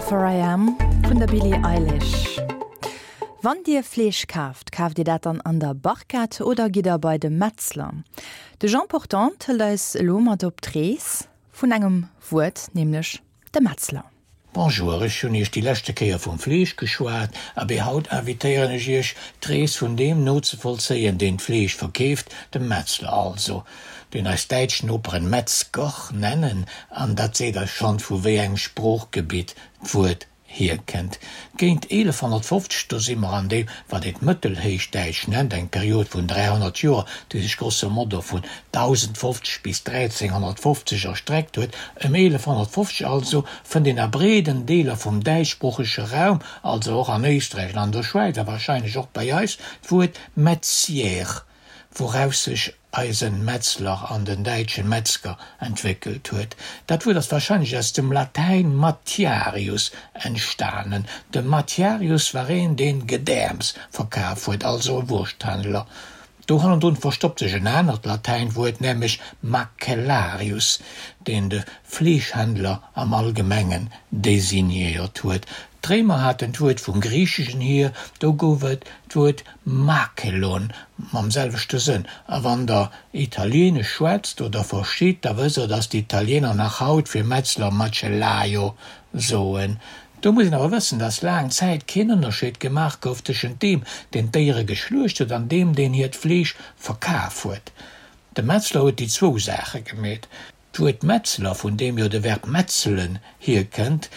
For I Am vun der Billie Eilish. Wann Dir Fleesch kaaft, kaaft Dir dat dann an der Barquette oder gitt der bei de Metzler? De Jean Portante hëlt eis elo mat op d'Rees vun engem Wuert, nämlech de Metzler. Bonjour, ech hunn Iech déi leschte Kéier vum Fleesch geschwat, abee haut invitéieren ech Iech, d'Rees vun deem nozevollzéien, deen d'Fleesch verkeeft, dem Metzler also, deen eis däitsch Noperen Metzger nennen, an dat seet eis schonn, vu wéi engem Sproochgebitt d'Wuert hierkennt. Géint 1150, do si mer an deem, wat een d'Mëttelhéichdäitsch nennt, eng Period vun 300 Joer, déi sech grosso modo vun 1050 bis 1350 erstreckt huet, ëm 1150 also, fënnt een a breeden Deeler vum däitschsproochege Raum, also och an Éisträich an an der Schwäiz a warscheinlech och bei eis, d'Wuert Metzier, wouraus sech eisen Metzler an den däitschen Metzger entwéckelt huet. Dat Wuert ass wahrscheinlech aus dem Latäin matiarius entstanen. De Matiarius war een deen Gedäerms verkaf huet, also e Wursthändler. Do hannendrun verstoppt sech en anert Latäinwuert, nämlech macellarius, deen de Fleeschhändler am Allgemengen designéiert huet. D'Réimer haten d'Wuert vum Griicheschen hier, do gouf et d'Wuert makelon mam selwechte Sënn. A wann der Italieenesch schwätzt oder verstitt, da wësst der, datt d'Italieener nach haut fir Metzler macellaio soen. Do muss een awer wëssen, datt laang Zäit keen Ënnerscheed gemaach gouf tëschent deem, deen d'Déiere geschluecht huet, an deem, deen hiert Fleesch verkaf huet. De Metzler huet déi zwou Saache gemeet. D'Wuert Metzler, vun deem jo de Verb metzelen hierkënnt,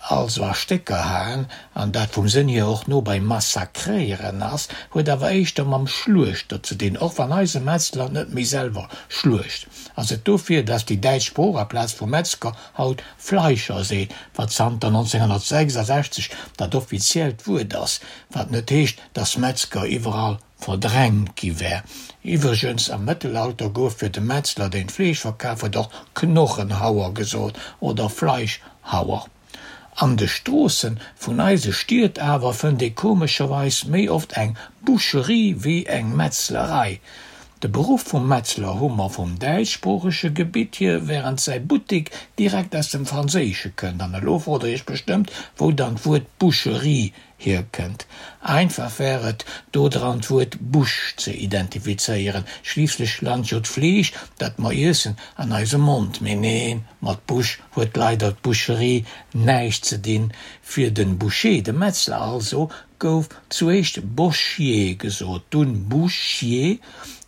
also a Stécker haen, an dat vum Sënn hier och no bei massakréieren ass, huet awer éischter mam Schluechter ze dinn, och wann eise Metzler net méi selwer schluecht. Ass et dofir, dass déi däitsch Sprooch aplaz vu Metzger haut Fleischer seet, wat zanter 1966 dat offiziellt Wuert ass, wat net heescht, dass Metzger iwwerall verdrängt gi wär. Iwwregens, am Mëttelalter gouf fir de Metzler, deen d'Fleesch verkaf huet, och Knochenhauer gesot oder Fleischhauer. An de Stroosse vun eise Stied awer fënnt ee komescherweis méi oft eng Boucherie wéi eng Metzlerei. De Beruff vum Metzler hu mer vum däitschsproochege Gebitt hier, wärend säi Buttek direkt aus dem Franséische kënnt. An elo frot der iech bestëmmt, wou dann d'Wuert Boucherie hierkënnt. Einfach wär et, do dran d'Wuert Bouche ze identifizéieren, schliisslech lant jo d'Fleesch, dat mer iessen, an eisem Mond. Mee neen, mat Bouche huet leider d'Boucherie näischt ze dinn. Fir de Boucher, de Metzler also, gouf zuéischt Bochier gesot, dunn Bouchier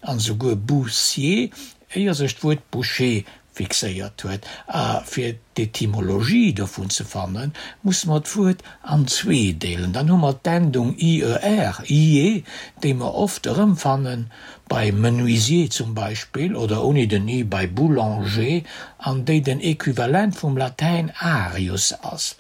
an esouguer Boussier, éier sech d'Wuert Boucher fixéiert huet. A fir d'Etymologie dovun ze fannen, musse mer d'Wuert an zwee deelen. Dann hu mer d'Endung ier, ier, déi mer oft erëmfannen, bei menuisier zum Beispill, oder ouni den i bei boulanger, an déi den Equivalent vum Latäin arius ass.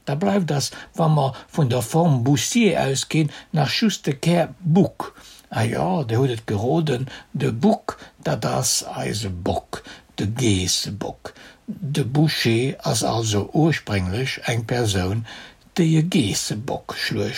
Da bleift ass, wa mer vun der Form Boussier ausginn, nach just de Kär Bouc. Ah jo, Dir hutt et geroden, de Bouc, dat ass eise Bock, de Geessebock. De Boucher ass also ursprénglech eng Persoun, déi e Geessebock schluecht.